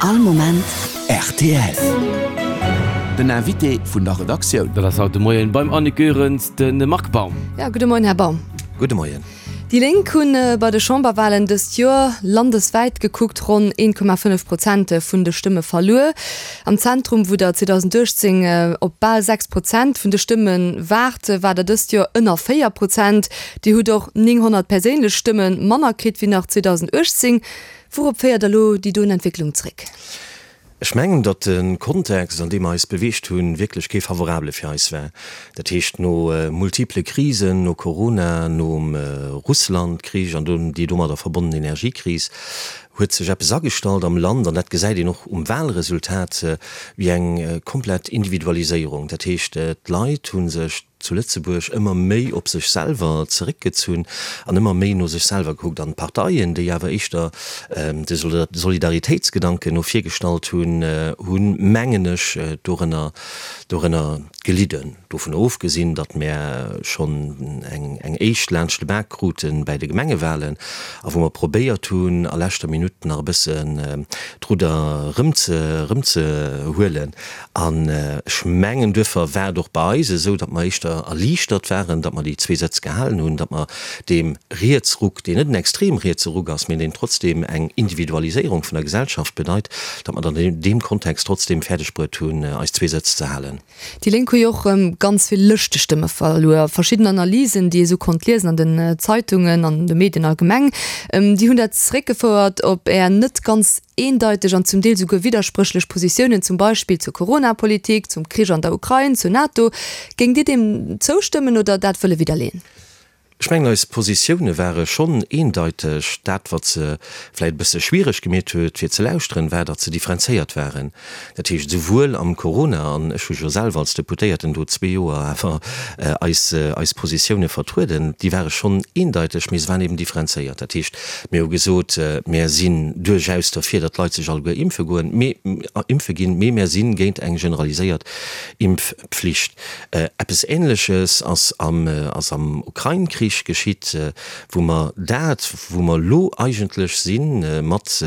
All Moment rtl. Den Invité vun der Redaktioun. Dat ass haut de Moien beim Annick Goerens de Marc Baum. Ja, gudde Moien, Här Baum. Gudde Moien. Déi Lénk hunn bei de Chamberwalen dëst Joer landeswäit gekuckt ronn 1,5 Prozent vun de Stëmme verluer. Am Zentrum, wou der 2018 op bal 6 Prozent vun de Stëmme waart, war der dëst Joer ënner 4 Prozent. Dir hutt och 900 perséinlech Stëmme manner kritt wéi nach 2018. Wourop féiert der elo déi doen Entwécklung zréck? Ech mengen, datt de Kontext, an deem mer eis beweegt hunn, wierklech kee favorabele fir eis war. Dat heescht, no multiple Krisen, no Corona, nom Russland-Krich an déi domadder verbonnen Energiekris, huet sech eppes agestallt am Land, an dat gesäit een och um Wahlresultat, wéi eng komplett Individualiséierung. Dat heescht, d'Leit hu sech zu Lëtzebuerg ëmmer méi op sech selwer zeréckgezunn an ëmmer méi no sech selwer gekuckt. An d'Parteien, déi awer éischter de Solidaritéitsgedanken no vir gestallt hunn, hunn, mengen ech, dorënner, dorënner gelidden. Dovun ofgesinn, datt mär schonn eng, eng éischt laanscht de Bak krute bäi de Gemengewahlen a wou mer probéiert hunn, a leschter Minutt nach e bëssen d'Rudder erëmze, erëmzehuelen. An ech mengen, duerfir war et och bei eis esou, datt mer éischter erliichtert waren, datt mer déi zwee Sëtz gehalen hunn, datt mer deem Rietsruck, deen net en extrem rietse Ruck ass, mä deen trotzdem eng Individualiséierung vun der Gesellschaft bedeit, datt mer dann an deem Kontext trotzdem fäerdeg bruet hunn, eis zwee Sëtz ze halen. Déi Lénk hu jo och erëm ganz vill Lëschtestëmme verluer. Verschidden Analysen, déi ee sou konnt liesen an den Zeitungen an de Medien allgemeng, déi hunn dat zeréckgefouert op Är net ganz Eendeiteg an zum Deel souguer widderspréchlech Positiounen, zum Beispill zur Corona-Politik, zum Krich an der Ukrain, zur NATO. Géingt Dir deem zoustëmmen oder dat wëlle widderleeën? Ech mengen, eis Positioune ware schonn eendeiteg. Dat, wat se vläicht e bësse schwiereg gemeet huet, fir ze lauschteren, war, datt se differenzéiert waren. Dat heescht, esouwuel am Corona, an ech hu jo selwer als Deputéierten do zwee Joer awer eis, eis Positioune vertrueden, déi ware schonn eendeiteg, mee se waren eben differenzéiert. Dat heescht, mir hu gesot, mär sinn duerchaus derfir, datt d'Leit sech alleguer impfe goen, mee, impfe ginn, mee mär si géint eng generaliséiert Impfpflicht. Eppes Ähnleches ass am, ass am Ukrain-Krich geschitt, wou mer dat, wou mer elo eigentlech sinn, mat,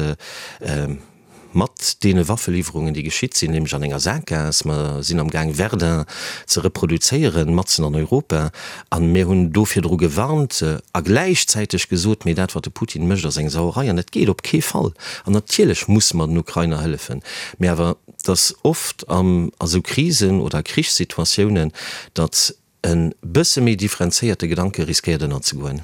Mat deene Waffeliwwerungen, déi geschitt sinn, nämlech an enger Saakgaass, mer sinn am Gaang Verdun ze reproduzéieren, matzen an Europa, a mir hunn do virdru gewarnt a gläichzäiteg gesot, mee dat wat de Putin mécht ass eng Sauerei an dat geet op kee Fall. An natierlech musse mer den Ukrainer hëllefen, mee awer et ass oft a sou Krisen oder Krichssituatiounen, datt E bësse méi differenzéierte Gedanke riskéiert ënnerzegoen.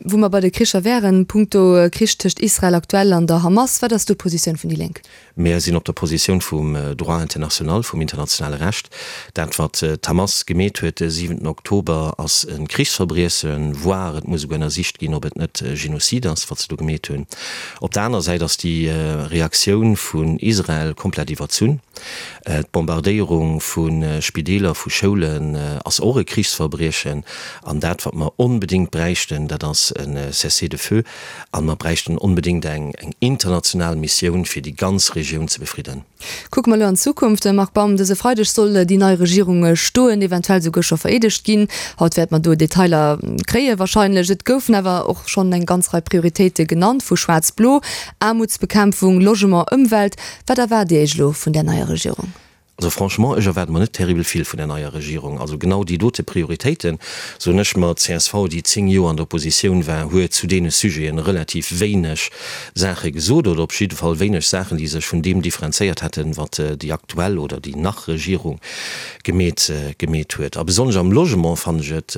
Wou mer bei de Kricher wären, punkto Krich tëscht Israel aktuell an der Hamas, wat ass do d'Positioun vun déi Lénk? Mir sinn op der Positioun vum Droit international, vum internationale Recht. Dat wat d'Hamas gemeet huet de siwenten Oktober ass e Krichsverbriechen, voire et muss esouguer ënnersicht ginn, ob et net Genocide ass, wat se do gemeet hunn. Op der aner Säit ass déi Reaktioun vun Israel komplett iwwerzunn. D'Bombardéierung vu Spideeler, vu Schoulen ass och e Krichsverbriechen. An dat, wat mer onbedéngt bräichten, dat ass e Cessez-le-feu. A mer bräichten onbedéngt eng international Missioun, fir déi ganz Regioun ze befridden. Kucke mer elo an d'Zukunft, Marc Baum. Dëse Freideg soll déi nei Regierung stoen, eventuell souguer scho vereedegt ginn. Haut wäerte mer do Detailer kréie wahrscheinlech. Et goufen awer och schonn eng ganz Rei Prioritéite genannt vu Schwaarz-Blo, Aarmutsbekämpfung, Logement, Ëmwelt. Wat erwaart Dir Iech elo vun där neier Regierung? Also franchement, ech erwaarde mer net terribel vill vun där neier Regierung. Also genau déi dote Prioritéiten, soen ech mer, d'CSV, déi 10 Joer an der Oppositioun war, huet zu deene Sujeten relativ wéineg Saache gesot oder op jidde Fall wéineg Saachen, déi sech vun deem differenzéiert hätten, wat déi aktuell oder déi nach Regierung gemeet gemeet huet. A besonnesch am Logement fannen ech et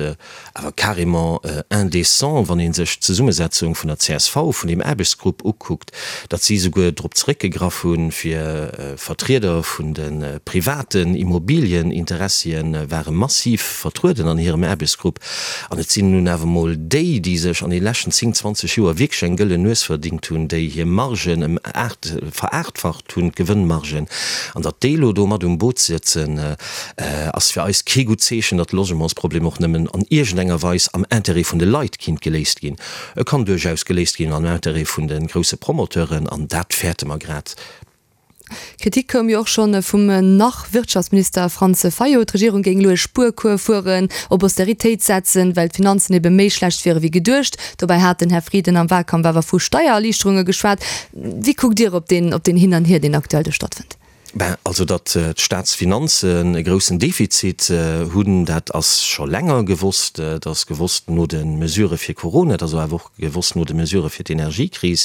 Awer carrément indécent, wann ee sech d'Zesummesetzung vun der csv, vun deem Aarbechtsgrupp ukuckt, datt si souguer drop zeréckgegraff hunn, fir Vertrieder vun de privaten Immobilieninteressie ware massiv vertrueden an hirem Aarbechtsgrupp. An et sinn nun awer emol déi, déi sech an de leschten 10, 20 Joer wierklech eng gëllen Nues verdingt hunn, déi hir Margen ëm aacht, veraachtfacht hunn, d'Gewënnmargen, an datt déi elo do mat um Boot sëtzen, Ass fir eis kee gutt Zeechen, datt de Logementsproblem och nëmmen an iergendenger Weis am Intérêt vun de Leit kinnt geléist ginn. E kann duerchaus geléist ginn am Intérêt vun de grousse Promoteuren, an dat fäerte mer grad. Kritik koum jo och scho vum Nach-Wirtschaftsminister Franz Fayot. D'Regierung géing elo e Spuercours fueren, op Austeritéit setzen, well d'Finanzen ebe méi schlecht wiere wéi geduecht. Dobäi hat den Här Frieden am Wahlkampf awer vu Steiererliichterunge geschwat. Wéi kuckt Dir op deen op deen Hin an Hier, deen aktuell do stattfënnt? Ben, also datt d'Staatsfinanzen e groussen Defizit hunn, dat ass scho länger gewosst. Dat ass gewosst no de Mesurë fir Corona, dat ass awer och gewosst no de Mesurë fir d'Energiekris.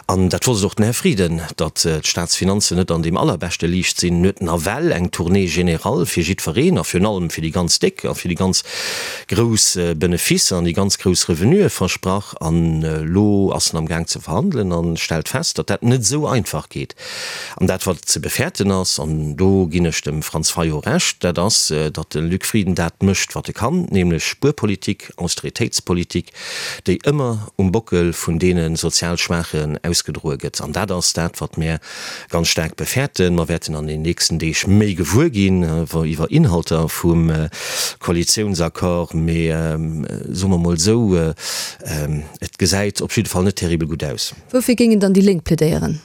An dat wosst och den Här Frieden, datt d'Staatsfinanzen net an deem allerbeschte Liicht sinn. En huet nawell eng Tournée générale fir jiddwereen a virun allem fir déi ganz Déck a fir déi ganz grouss Beneficer an déi ganz grouss Revenuë versprach. An elo ass en amgaang ze verhandelen a stellt fest, datt dat net esou einfach geet. An dat, wat ze befäerten ass, an do ginn ech dem Franz Fayot Recht, dat ass, datt de Luc Frieden dat mécht, wat e kann, nämlech Spuerpolitik, Austeritéitspolitik, déi ëmmer um Bockel vun deene sozial Schwaachen ausgedroe gëtt. An dat ass dat, wat mär ganz staark befäerten. Mer wäerten an den nächsten Deeg méi gewuer ginn iwwer Inhalter vum Koalitiounsaccord. Mee soe mer mol esou, et gesäit op jidde Fall net terribel gutt aus. Woufir géingen dann déi Lénk plädéieren?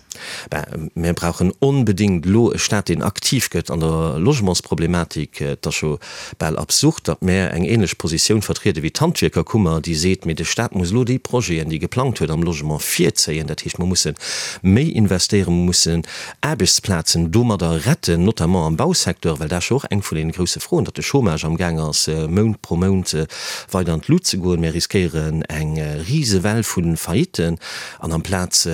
Ben, mir brauchen onbedéngt elo e Staat, deen aktiv gëtt an der Logementsproblematik. Et ass scho bal absurd, datt mär eng ähnlech Positioun vertriede wéi d'Handwierkerkummer, déi seet, mee de Staat muss elo déi Projeten, déi e geplangt huet am Logement, virzéien. Dat heescht, mer musse méi investéieren, mer mussen Aarbechtsplazen domadder retten, notamment am Bausecteur, well dat ass jo och eng vun deene grousse Froen, datt de Chômage amgaang ass, Mount pro Mount weider an d'Lut ze goen. Mir riskéieren eng Risewell vu Faillitten. An amplaz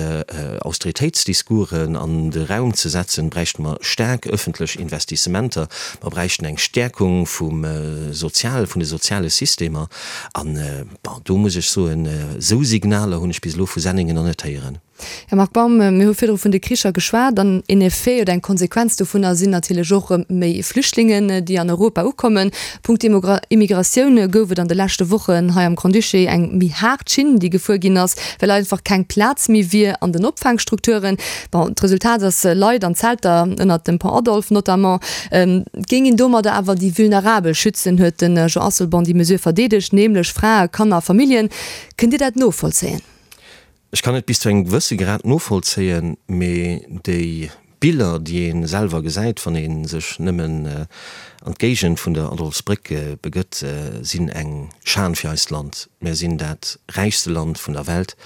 Austeritéitsdiscoursen an de Raum ze setzen, bräichte mer staark ëffentlech Investissementer. Mer bräichten eng Stäerkung vum Sozial, vun de soziale Systemer. An, bon, do muss ech soen, esou Signaler hunn ech bis elo vu Senningen nach net héieren. Här Marc Baum, mir hu virdru vun de Kricher geschwat an een Effet oder eng Konsequenz dovunner sinn natierlech och erëm méi Flüchtlingen, déi an Europa ukommen. Punkto Immigratioun gouf et an de leschte Wochen hei am Grand-Duché eng méi haart Schinn, déi gefuer ginn ass, well einfach keng Plaz méi wier an den Opfaangstrukturen. Bon, d'Resultat ass Leit an Zelter ënnert dem Pont Adolphe notamment. Et géing een domadder awer déi Vulnerabel schützen, huet de Jean Asselborn déi Mesure verdeedegt, nämlech Frae, Kanner a Familljen. Kënnt Dir dat novollzéien? Ech kann et bis zu engem gewësse Grad novollzéien, mee déi Biller, déi ee selwer gesäit, wann ee sech nëmmen an d'Géigend vun der Adolphsbréck begëtt, sinn eng Schan fir eist Land. Mär sinn dat räichste Land vun der Welt.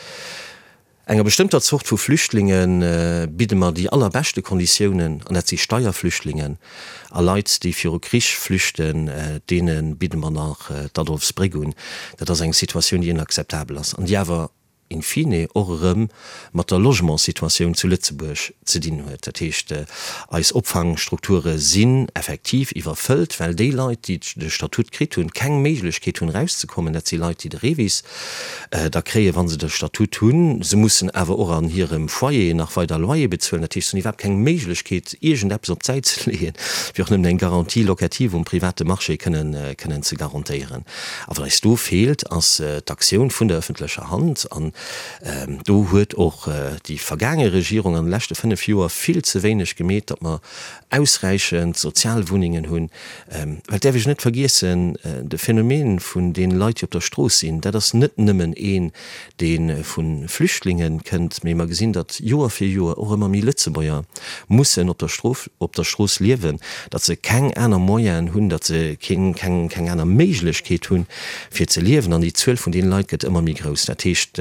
Enger bestëmmter Zort vu Flüchtlinge bidde mer déi allerbeschte Konditiounen, an dat si Steierflüchtlingen a Leit, déi viru Krich flüchten, deene bidde mer nach d'Adolphsbréck un. Dat ass eng Situatioun, déi inakzeptabel ass an déi awer in fine och erëm mat der Logementssituatioun zu Lëtzebuerg ze dinn huet. Dat heescht, eis Opfangstrukture sinn effektiv iwwerfëllt, well déi Leit, déi de Statut kritt hunn, keng Méiglechkeet hunn erauszekommen. Dat si Leit, déi de REVIS da kréien, wa se de Statut hunn. Se mussen awer och an hirem Foyer nach weider Loyer bezuelen. Dat heescht, se hunn iwwerhaapt keng Méiglechkeet, iergendeppes op d'Säit ze leeën, fir och nëmmen eng Garantie locative um private Marché kënnen ze garantéieren. A wat eis do feelt, ass d'Aktioun vun der öffentlecher Hand. An do huet och déi vergaange Regierung an de leschte 5 Joer vill ze wéineg gemeet, datt mer ausräichend Sozialwunnengen hunn. Well et däerf ech net vergiessen, de Phänomen vun deene Leit, déi op der Strooss sinn, dat ass net nëmmen een, dee vu Flüchtlinge kënnt, mee mer gesinn, datt Joer fir Joer och ëmmer méi Lëtzebuerger mussen op der Strof, op der Strooss liewen, datt se keng aner Moyenen hunn, datt se keng, keng, keng aner Méiglechkeet hunn, fir ze liewen. An déi Zuel vun deene Leit gëtt ëmmer méi grouss. Dat heescht,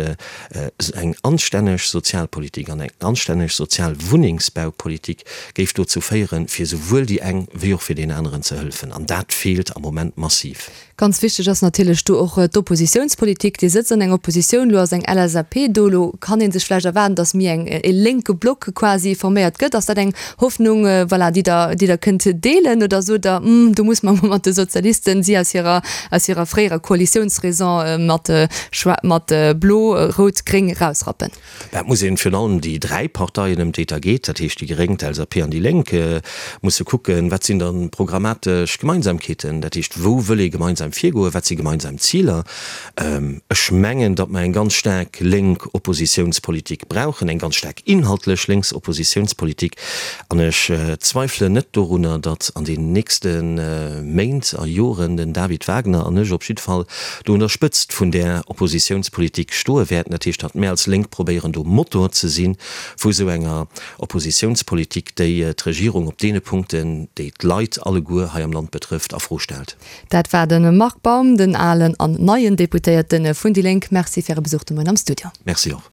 eng anstänneg Sozialpolitik an eng anstänneg sozial Wunnengsbaupolitik géif dozou féieren, fir esouwuel déi eng wéi och fir deen aneren ze hëllefen. An dat feelt am Moment massiv. Ganz wichteg ass natierlech do och d'Oppositiounspolitik. Dir sëtzt an enger Oppositioun, elo ass eng LSAP do, elo kann ee sech vläicht erwaarden, datt méi eng e lénke Block quasi forméiert gëtt. Ass dat eng Hoffnung, voilà, déi Der, déi Der kënnt deelen oder sot Der, Hm, do muss mer emol mat de Sozialisten, si aus hirer, aus hirer fréierer Koalitiounsraison mat mat Blo, Rout, Gréng rausrappen? Dat muss een, virun allem déi 3 Parteien, ëm déi et da geet, dat heescht déi Gréng, d'LSAP an déi Lénk, musse kucken, wat sinn dann programmatesch Gemeinsamkeeten, dat heescht wou wëll ee gemeinsam virgoen, wat si gemeinsam Ziler. Ech mengen, datt mer eng ganz staark lénk Oppositiounspolitik brauchen, eng ganz staark inhaltlech lénks Oppositiounspolitik. An ech zweifelen net dorunner, datt an den nächste Méint a Joren den David Wagner an ech op jidde Fall do un der Spëtzt vun där Oppositiounspolitik stoe wäerten. wäerten. Dat heescht, datt mär als Lénk probéieren do Motor ze si vu esou enger Oppositiounspolitik, déi d'Regierung op deene Punkten, déi d'Leit alleguer hei am Land betrëfft, a Fro stellt. Dat war de Marc Baum, den alen an neien Deputéierte vun déi Lénk. Merci fir Äre Besuch de Moien am Studio. Merci och.